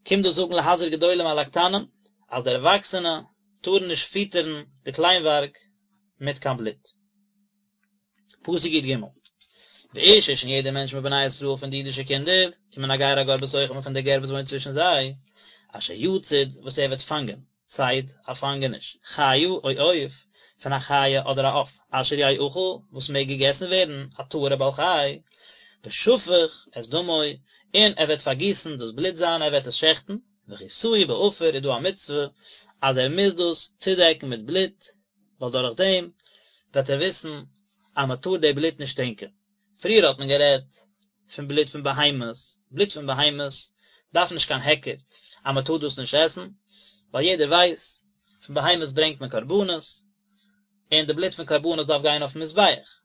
קומט דאס זאגן להזהיר גדולים על הקטנים, אז די ערוואקסענע טארן נישט פיטערן די קליינווארג מיט קיין בלוט. פסוק י"ג, ואיש איש און יעדער מענטש מבני ישראל פון די אידישע קינדער, ומן הגר הגר בתוכם און פון דער גר וואס וואוינט צווישן זיי, אשר יצוד וואס ער וועט פאנגען, ציד, א פאנגעניש, חיה או עוף, פון א חיה אדער א עוף, אשר יאכל, וואס מעג געגעסן ווערן, א טהור'ע בעל חי, ושפך את דמו, און ער וועט פארגיסן דאס בלוט זיינע, ער וועט עס שעכטן, וכסהו בעפר איז דא א מצוה אז ער מוז דאס צודעקן מיט בלוט, ווייל דורך דעם וועט ער וויסן אז מען טאר די בלוט נישט טרינקען. פריער האט מען גערעדט פון בלוט פון בהמות, בלוט פון בהמות דארף נישט קיין היכר אז מען טאר דאס נישט עסן, ווייל יעדער ווייסט פון בהמות ברענגט מען קרבנות, און די בלוט פון קרבנות דארף גיין אויפן מזבח.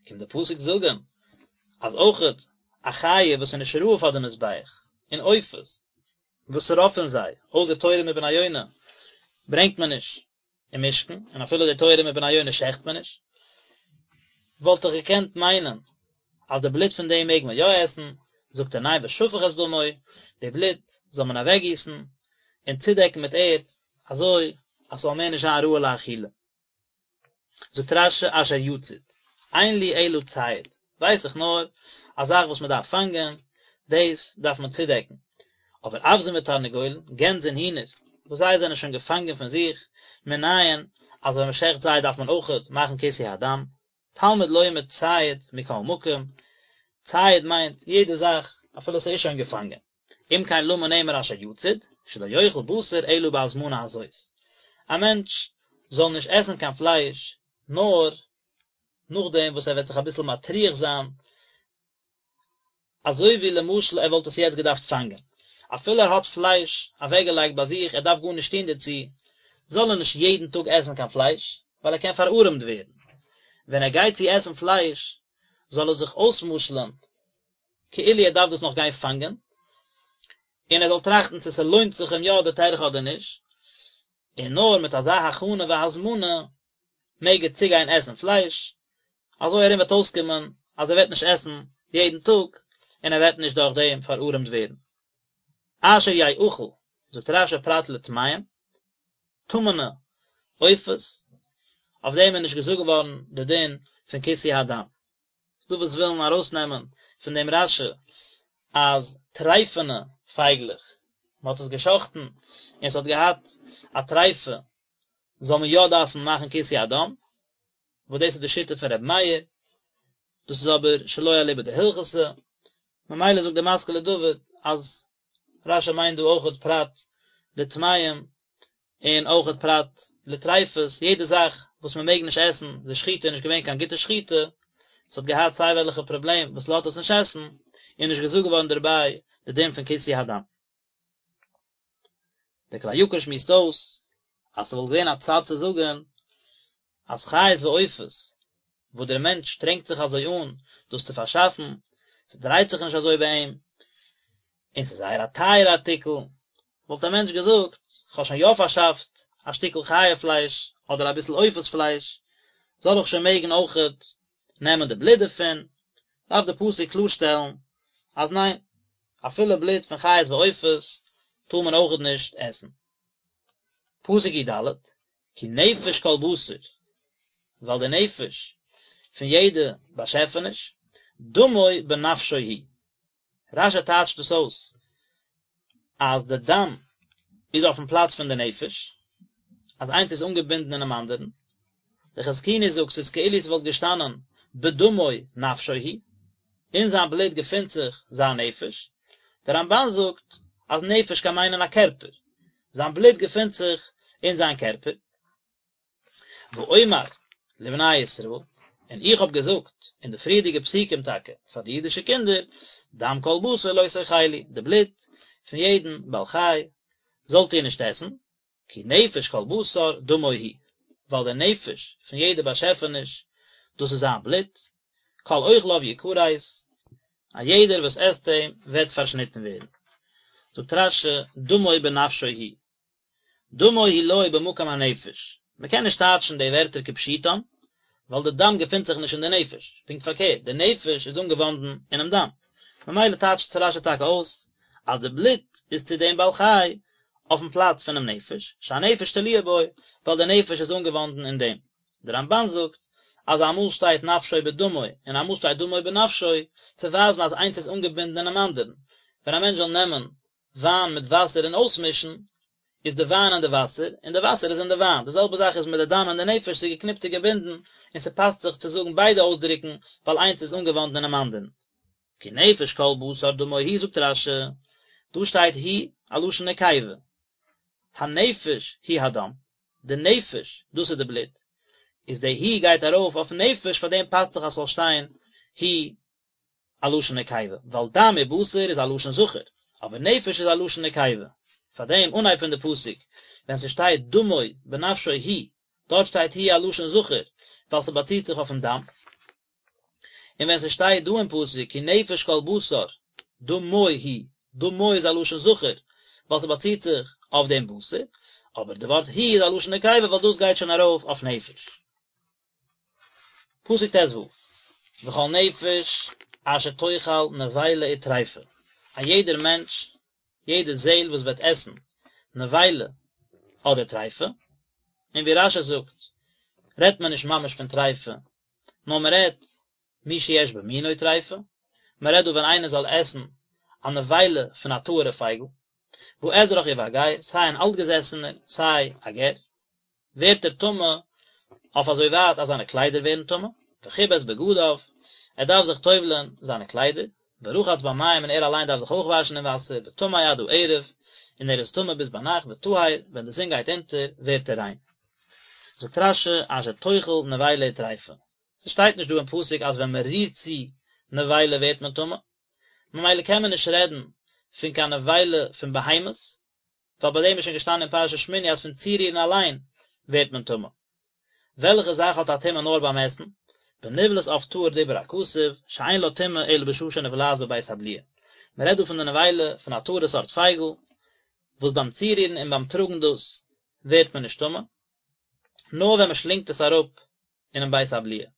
קומט די פסוק זאגן אז אויכעט א חיה וואס איז נישט ראוי פאר די מזבח, און עופות, וואס רוב פון זיי, אויסער תורים ובני יונה, ברענגט מען נישט אין משכן, און אפילו די תורים ובני יונה שעכט מען נישט, וואלט איך געקענט מיינען אז די בלוט פון דעם מעג מען יא עסן, זאגט ער ניין ושפך את דמו, די בלוט זאל מען אוועקגיסן און צודעקן מיט ערד, אזוי אז ס'זאל מער נישט זיין ראוי לאכילה. זאגט רש"י אשר יצוד, אין לי אלא ציד, ווייס איך נאר א זאך וואס מען דארף פאנגען, דאס דארף מען צודעקן, אבער אווזין ותרנגולין, גענז און הינער, וואס זיי זענען שוין געפאנגען פון זיך, מנין אז ווען מען שעכט זיי דארף מען אויכעט מאכן כיסוי הדם, תלמוד לומר ציד מכל מקום, ציד מיינט יעדע זאך אפילו ס'איז שוין געפאנגען. אם כן למה נאמר אשר יצוד, שלא יאכל בשר אלא בהזמנה הזאת. א מענטש זאל נישט עסן קיין פלייש נאר נאכדעם וואס ער וועט זיך אביסל מטריח זיין, אזוי ווי למשל ער וואלט עס יעצט געדארפט פאנגען. אפילו ער האט פלייש אוועקגעלייגט ביי זיך, ער דארף גארנישט טון דערצו, זאל ער נישט יעדן טאג עסן קיין פלייש, ווייל ער קען פארארעמט ווערן. ווען ער גייט צו עסן פלייש, זאל ער זיך אויסמשל'ן כאילו ער דארף דאס נאך גיין פאנגען, און ער זאל טראכטן צו ס'לוינט זיך אים יא די טרחה אדער נישט, און נאר מיט אזא הכנה והזמנה מעג ער צוגיין עסן פלייש, אזוי ארום וועט אויסקומען אז ער וועט נישט עסן יעדן טאג, און ער וועט נישט דורך דעם פארארעמט ווערן. אשר יאכל, זאגט רש"י פרט לטמאים, טמא'נע עופות, אויף דעם איז נישט געזאגט געווארן די דין פון כיסוי הדם. ס'דא וואס ווילן ארויסנעמען פון דעם רש"י אז טרייפענע פייגלעך, מען האט עס געשחט'ן און עס האט געהאט א טרייפה, זאל מען יא דארפן מאכן כיסוי הדם, וואס דאס איז די שיטה פון ר' מאיר, דאס איז אבער שלא אליבא דהלכתא, ממילא זאגט דער משכיל לדוד אז רש"י מיינט דא אויכעט פרט לטמאים און אויכעט פרט לטריפות, יעדע זאך וואס מען מעג נישט עסן, די שחיטה איז נישט געווען קיין גוטע שחיטה, עס האט געהאט סיי וועלכע פראבלעם וואס לאזט עס נישט עסן, איז נישט געזאגט געווארן דערביי די דין פון כיסוי הדם. דער כלי יקר שמועסט אויס אז ס'וואלט געווען א צד צו זאגן אז חיות ועופות וואס דער מענטש שטרענגט זיך אזוי אן דאס צו פארשאפן, ס'דרייט זיך נישט אזוי ביי אים, און ס'איז זייער א טייערע ארטיקל, וואלט א מענטש געזאגט, כ'האב שוין יא פארשאפט א שטיקל חיה פלייש אדער אביסל עופות פלייש, זאל איך שוין מעגן אויכעט נעמען די בלוט דערפון? דארף די פסוק קלארשטעלן אז ניין, אפילו בלוט פון חיות ועופות טאר מען אויכעט נישט עסן. פסוק י"ד, כי נפש כל בשר, ווייל די נפש פון יעדע באשעפעניש, דמו בנפשו הוא. רש"י טייטשט דאס אויס אז די דם איז אויפן פלאץ פון די נפש, אז איינס איז אנגעבינדן אינעם אנדערן. דער חזקוני זאגט ס'איז כאילו ס'וואלט געשטאנען בדמו נפשו הוא, אין זיין בלוט געפינט זיך זיין נפש. דער רמב"ן זאגט. אז נפש קען מיינען א קערפער, זיין בלוט געפינט זיך אין זיין קערפער. ואומר לבני ישראל, און איך האב געזאגט אין די פריערדיגע פסוקים טאקע פאר די אידישע קינדער, דם כל בשר לא תאכלו, די בלוט פון יעדן בעל חי זאלט איר נישט עסן, כי נפש כל בשר דמו הוא, ווייל דער נפש פון יעדע באשעפעניש, דאס איז זיין בלוט, כל אוכליו יכרת, א יעדער וואס עסט אים וועט פארשניטן ווערן. זאגט רש"י, דמו בנפשו הוא, דמו הוא לו במקום הנפש, מען קען נישט טייטשן די ווערטער כפשוטם, ווייל די דם געפינט זיך נישט אין די נפש, פונקט פארקערט, די נפש איז אנגעוואנדן אינעם דם, ממילא טייטשט רש"י טאקע אויס אז די בלוט איז צו דעם בעל חי אויפן פלאץ פונעם נפש, שהנפש תלויה בו, ווייל די נפש איז אנגעוואנדן אין דעם. די רמב"ן זאגט אז אמאל שטייט נפשו בדמו און אמאל שטייט דמו בנפשו, צו ווייזן אז איינס איז אנגעבינדן אינעם אנדערן, ווען א מענטש זאל נעמען וויין מיט וואסער און אויסמישן, איז די וויין אין די וואסער, און די וואסער איז אין די וויין. די זעלבע זאך איז מיט די דם און די נפש, ס'איז געקניפט און געבינדן, און ס'פאסט זיך צו זאגן ביידע אויסדרוקן, ווייל איינס איז אנגעוואנדן אינעם אנדערן. כי נפש כל בשר דמו הוא זאגט רש"י, דא שטייט הוא א לשון נקבה, הנפש הוא הדם, די נפש, דאס איז די בלוט, איז די הוא גייט ארויף אויפן נפש, פארדעם פאסט זיך אז ס'זאל שטיין הוא א לשון נקבה, ווייל דם ובשר איז א לשון זכר, אבער נפש איז א לשון נקבה. פאר דעם אנהייב פון די פסוק, ווען ס'שטייט דמו בנפשו הוא, דארט שטייט הוא א לשון זכר, ווייל ס'באציט זיך אויפן דם. און ווען ס'שטייט דא אין פסוק כי נפש כל בשר דמו הוא, דמו איז א לשון זכר, ווייל ס'באציט זיך אויף דעם בשר, אבער די ווארט הוא איז א לשון נקבה ווייל דאס גייט שוין ארויף אויף נפש. פסוק ט"ו, וכל נפש אשר תאכל נבילה וטריפה, א יעדער מענטש, יעדע זעהל וואס וועט עסן נבילה אדער טריפה, און ווי רש"י זאגט, רעדט מען נישט ממש פון טריפה, נאר מען רעדט מי שיש במינו טריפה, מען רעדט דא ווען איינער זאל עסן א נבילה פון א טהור'ע פייגל, באזרח ובגר, סיי אן אלטגעזעסענער, סיי א גר. ווערט ער טמא אויף אזוי ווייט אז זיינע קליידער ווערן טמא, וכבס בגדיו, ער דארף זיך טובל'ען זיינע קליידער, ורחץ במים און ער אליין דארף זיך אויך וואשן אין וואסער, וטמא עד הערב, און ער איז טמא ביז ביינאכט, וטהר, ווען די זון גייט אונטער, ווערט ער ריין. זאגט רש"י, אשר תאכל נבילה וטריפה. ס'שטייט נישט דא אין פסוק אז ווען מ'רירט צו נבילה ווערט מען טמא, ממילא קען מען נישט רעדן פון קיין נבילה פון בהמות, ווייל ביי דעם איז שוין געשטאנען אין פרשת שמיני אז פון צורירן אליין ווערט מען טמא. וועלכע זאך האט א טומאה נאר ביים עסן? בנבלת עוף טהור דיבר הכתוב, שאין לה טומאה אלא בשעה שנבלעת בבית הבליעה. מען רעדט דא פון די נבילה פון א טהור'ע סארט פייגל, וואס ביים צורירן און ביים טראגן דאס ווערט מען נישט טמא, נאר ווען מען שלינגט עס אראפ אינעם בית הבליעה.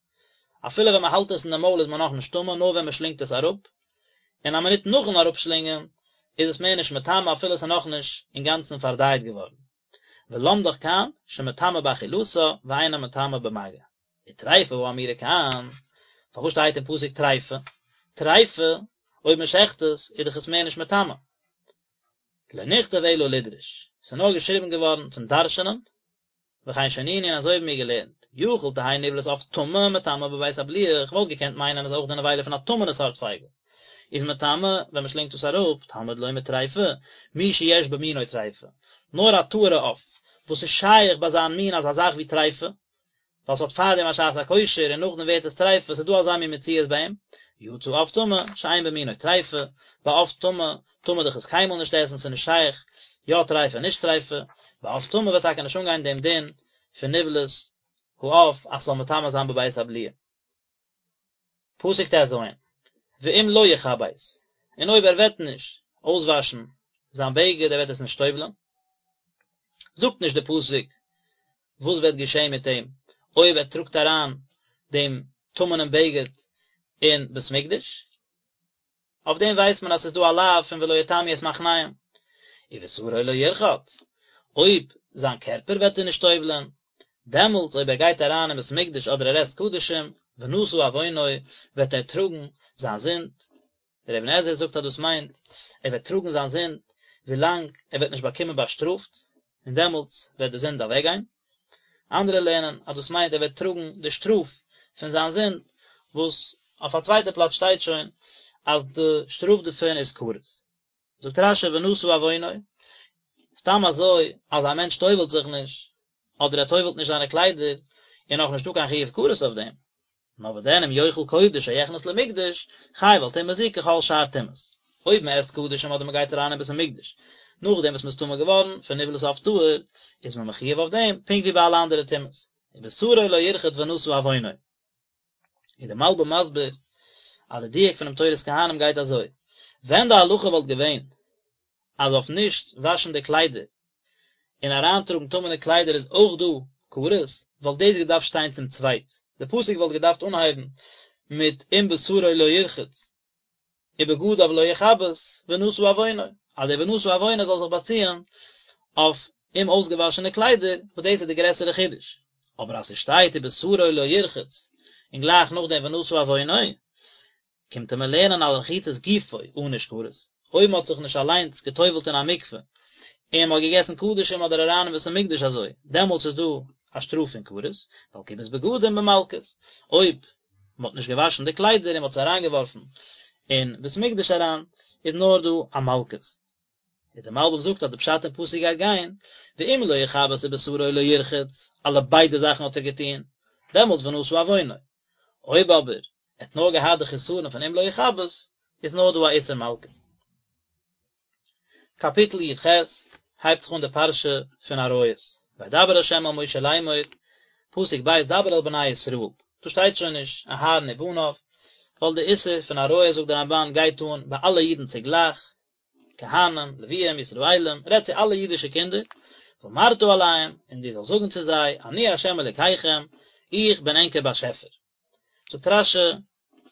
אפילו ווען מען האלט עס אין די מויל איז מען נאכנישט טמא נאר ווען מען שלינגט עס אראפ, און א מינוט נאכן אראפשלינגען איז עס מער נישט מטמא אפילו עס איז נאכנישט אינגאנצן פארדייט געווארן. ולמדך כאן שמטמא באכילתה ואינה מטמא במגע. וטריפה האמורה כאן, פארוואס שטייט אין פסוק טריפה? טריפה, אויב מען שעכט עס, איז דאך עס מער נישט מטמא. לא נכתב אלא לדרוש, עס איז נאר געשריבן געווארן צום דרש'נען, וכן שנינו און אזוי האבן מיר געלערנט, יכול תהא נבלת עוף טמא מטמאה בבית הבליעה, איך וואלט געקענט מיינען אז אויך די נבילה פון א טמא'נע סארט פייגל איז מטמא ווען מען שלינגט עס אראפ, תלמוד לומר טריפה, מי שיש במינו טריפה, נאר א טהור'ע עוף וואס איז שייך ביי זיין מין אזא זאך ווי טריפה, ווייל ס'האט פארדעם א שעת הכושר און נאכדעם ווערט עס טריפה, ס'איז דא אזא מין מציאות ביי אים, יצא עוף טמא, שאין במינו טריפה, ביי עוף טמא טאר מען דאך עס קיינמאל נישט עסן, ס'איז נישט שייך יא טריפה נישט טריפה, ביי עוף טמא וועט טאקע נישט אנגיין דעם דין פון נבלת העוף אז ס'זאל מטמא זיין בבית הבליעה. פסוק ט"ז, ואם לא יכבס, און אויב ער וועט נישט אויסוואשן זיין בגד, ער וועט עס נישט טובל'ען, זאגט נישט די פסוק וואס וועט געשען מיט אים אויב ער טראגט אריין דעם טמא'נעם בגד אין בית מקדש, אויף דעם ווייסט מען אז ס'איז דא א לאו פון ולא יטמאו את מחניהם. ובשרו לא ירחץ, אויב זיין קערפער וועט ער נישט טובל'ען, דעמאלטס אויב ער גייט אריין אין בית מקדש אדער ער עסט קדשים, ונשא עוונו, וועט ער טראגן זיין זינד. דער אבן עזרא זאגט אז דאס מיינט, ער וועט טראגן זיין זינד ווילאנג ער וועט נישט באקומען באשטראפט, און דעמאלטס וועט די זינד אוועקגיין. אנדערע לערנען אז דאס מיינט ער וועט טראגן די שטראף פון זיין זינד, וואס אויף א צווייטע פלאץ שטייט שוין אז די שטראף דערפון איז כרת. זאגט רש"י ונשא עוונו, סתם אזוי אז א מענטש טובל'ט זיך נישט, אדער ער טובל'ט נישט זיינע קליידער, איז נאך נישטא קיין חיוב כרת אויף דעם. נאר וואדען אם יאכל קודש או יכנס למקדש, חייב על טומאה זו ככל שאר טומאות. אויב מען עסט קדשים אדער מען גייט אריין אין בית המקדש נאכדעם וואס מען איז טמא געווארן פון נבלת עוף טהור, איז מען מחויב אויף דעם פונקט ווי ביי אלע אנדערע טומאות. ובשרו לא ירחץ ונשא עוונו. איז דער מלבי"ם מסביר אז די דיוק פונעם תורת כהנים גייט אזוי, ווען די הלכה וואלט געווען אז אויף נישט וואשן די קליידער און אריינטראגן טמא'נע קליידער איז אויך דא כרת, וואלט דאס געדארפט שטיין צום צווייט, די פסוק וואלט געדארפט אנהייבן מיט אם בשרו לא ירחץ ובגדיו לא יכבס ונשא עוונו, אז דער ונשא עוונו זאל זיך באציען אויף אומאויסגעוואשענע קליידער, וואס דאס איז די גרעסערע חידוש. אבער אז ס'שטייט ובשרו לא ירחץ און גלייך נאכדעם ונשא עוונו, קומט ער מיר לערנען על רחיצת גופו ענוש כרת, אויב מ'האט זיך נישט אליינס גע'טובל'ט אין א מקווה, און מ'האט געגעסן קדשים אדער אריין אין בית המקדש אזוי, דעמאלטס איז דא א שטראף פון כרת, ועל כיבוס בגדים במלקות, אויב מ'האט נישט געוואשן די קליידער און מ'האט זיי אריינגעווארפן אין בית המקדש אריין, איז נאר דא א מלקות. איז דער מלבי"ם זאגט אז די פשט אין פסוק גייט גיין, ואם לא יכבס ובשרו לא ירחץ, אלע ביידע זאכן האט ער געטון, דעמאלטס ונשא עוונו. אויב אבער ער האט נאר געהאט די חסרון פון אם לא יכבס, איז נאר דא א איסור מלקות. קאפיטל י"ח הייבט זיך אן די פרשה פון עריות, וידבר ה' אל משה לאמור, פסוק ב' דבר אל בני ישראל, דא שטייט שוין נישט אהרן ובניו, ווייל די איסור פון עריות זאגט די רמב"ן גייט אן ביי אלע אידן צוגלייך, כהנים, לוויים, ישראלים, רעד צו אלע אידישע קינדער, ואמרת אליהם, און דו זאלסט זאגן צו זיי, אני ה' אלוקיכם, איך בין ענקער באשעפער. זאגט רש"י,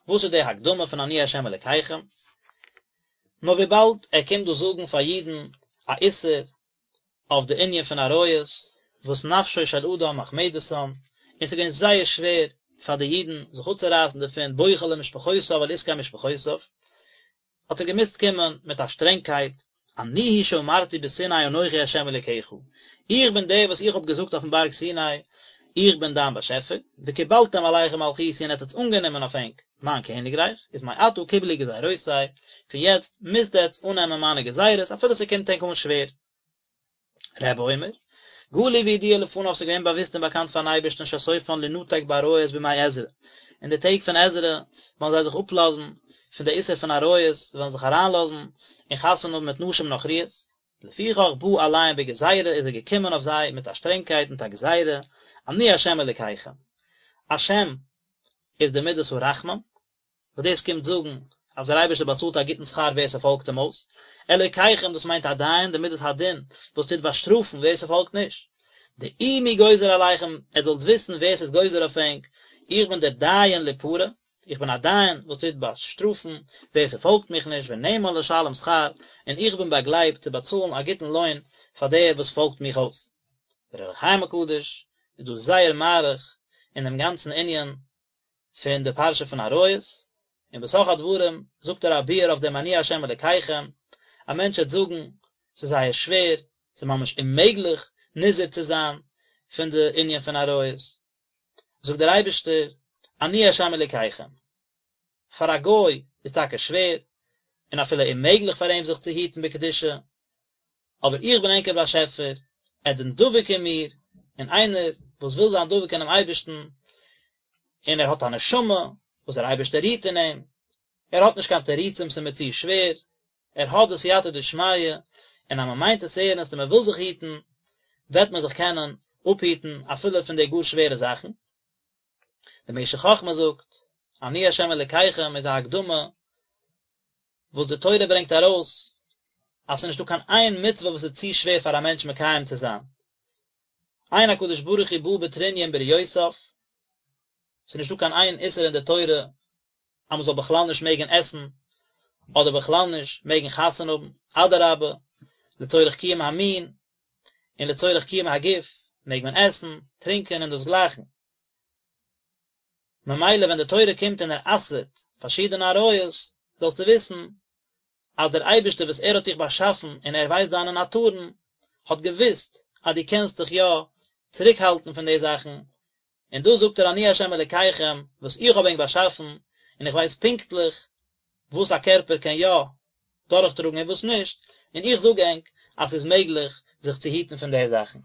וואס איז די הקדמה פון אני ה' אלוקיכם? נאר וויבאלד ער קומט דא זאגן פאר אידן א איסור אויף די ענין פון עריות, וואס נפשו של אדם מחמדתן, און ס'איז געווען זייער שווער פאר די אידן זיך אפצורייסן דערפון, בוכה למשפחותיו על עסקי משפחותיו, האט ער געמוזט קומען מיט א שטרענגקייט, אני הוא שאמרתי בסיני אנכי ה' אלוקיך, איך בין דער וואס איך האב געזאגט אויפן בארג סיני, איך בין דיין באשעפער, וקיבלתם עליכם מלכותי און עטס האטס אנגענומען אויף ענק מיין קעניגרייך, איז מעתה קבלו גזירותי, פון יעצט מוזט עטס אננעמען מיינע גזירות אפילו ס'קומט ענק אן שווער. רבי אומר, גלוי וידוע לפניו ס'איז געווען באוואוסט און באקאנט פארן אייבערשטן שסופן לינתק בעריות בימי עזרא, אין די טעג פון עזרא וועלן זיי זיך אפלאזן פון די איסור פון עריות, זיי וועלן זיך אריינלאזן און חתונה האבן מיט נשים נכריות, לפיכך בא עליהם בגזירה איז ער געקומען אויף זיי מיט א שטרענגקייט מיט א גזירה, אני השם אלוקיכם. השם איז די מידת הרחמים, וואס דאס קומט זאגן אז דער אייבערשטער באצאלט א גוטן שכר ווער ס'פאלגט אים אויס, אלוקיכם דאס מיינט א דיין, די מידת הדין וואס טוט באשטראפן ווער ס'פאלגט נישט, דעו מי גוזר עליכם, עטס זאלטס וויסן ווער ס'איז גוזר אויף ענק, איך בין דער דיין ליפרע, איך בין א דיין וואס טוט באשטראפן ווער ס'פאלגט מיך נישט, ונאמן לשלם שכר, און איך בין באגלייבט צו באצאלן א גוטן לוין פאר דער וואס פאלגט מיך אויס. דער אור החיים הקדוש איז דא זייער מאריך אין דעם גאנצן ענין פון די פרשה פון עריות, און בתוך הדברים זאגט ער א ביאור אויף דעם אני ה' אלקיכם, א מענטש וועט זאגן, ס'איז זייער שווער, ס'איז ממש אוממעגליך נזהר צו זיין פון די ענין פון עריות, זאגט דער אייבערשטער, אני ה' אלקיכם, פאר א גוי איז טאקע שווער, און אפילו אוממעגליך פאר אים זיך צו היטן בקדושה, אבער איך בין ענקער באשעפער, עטס זענט דבוק אין מיר, און איינער וואס וויל זיין דבוק אינעם אייבערשטן, און ער האט א נשמה וואס דער אייבערשטער רוהט אין אים, ער האט נישט קיין תירוצים ס'איז מיר צו שווער, ער האט די סייעתא דשמיא, און אז מען מיינט עס ערנסט און מען וויל זיך היטן, וועט מען זיך קענען אפהיטן אפילו פון די גאר שווערע זאכן. דער משך חכמה זאגט, אני ה' אלקיכם איז א הקדמה וואס די תורה ברענגט ארויס אז ס'איז נישטא קיין איין מצוה וואס איז צו שווער פאר א מענטש מקיים צו זיין. אין הקדוש ברוך הוא בא בטרוניא עם בריותיו, ס'איז נישטא קיין איין איסור אין די תורה אז מ'זאל בכלל נישט מעגן עסן, אדער בכלל נישט מעגן חתונה האבן, אדרבה, לצורך קיום המין און לצורך קיום הגוף מעג מען עסן, טרינקען און דאס גלייכן. ממילא ווען די תורה קומט און ער אסר'ט פארשידענע עריות, זאלסטו וויסן אז דער אייבערשטער וואס ער האט דיך באשאפן און ער ווייסט דיינע נאטורן, האט געוואוסט אז דו קענסט דיך יא צוריקהאלטן פון די זאכן, און דא זאגט ער אני ה' אלקיכם וואס איך האב ענק באשאפן, און איך ווייס פונקטליך וואס א קערפער קען יא. דורכטראגן און וואס נישט, און איך זאג ענק אז ס'איז מעגליך זיך צו היטן פון די זאכן.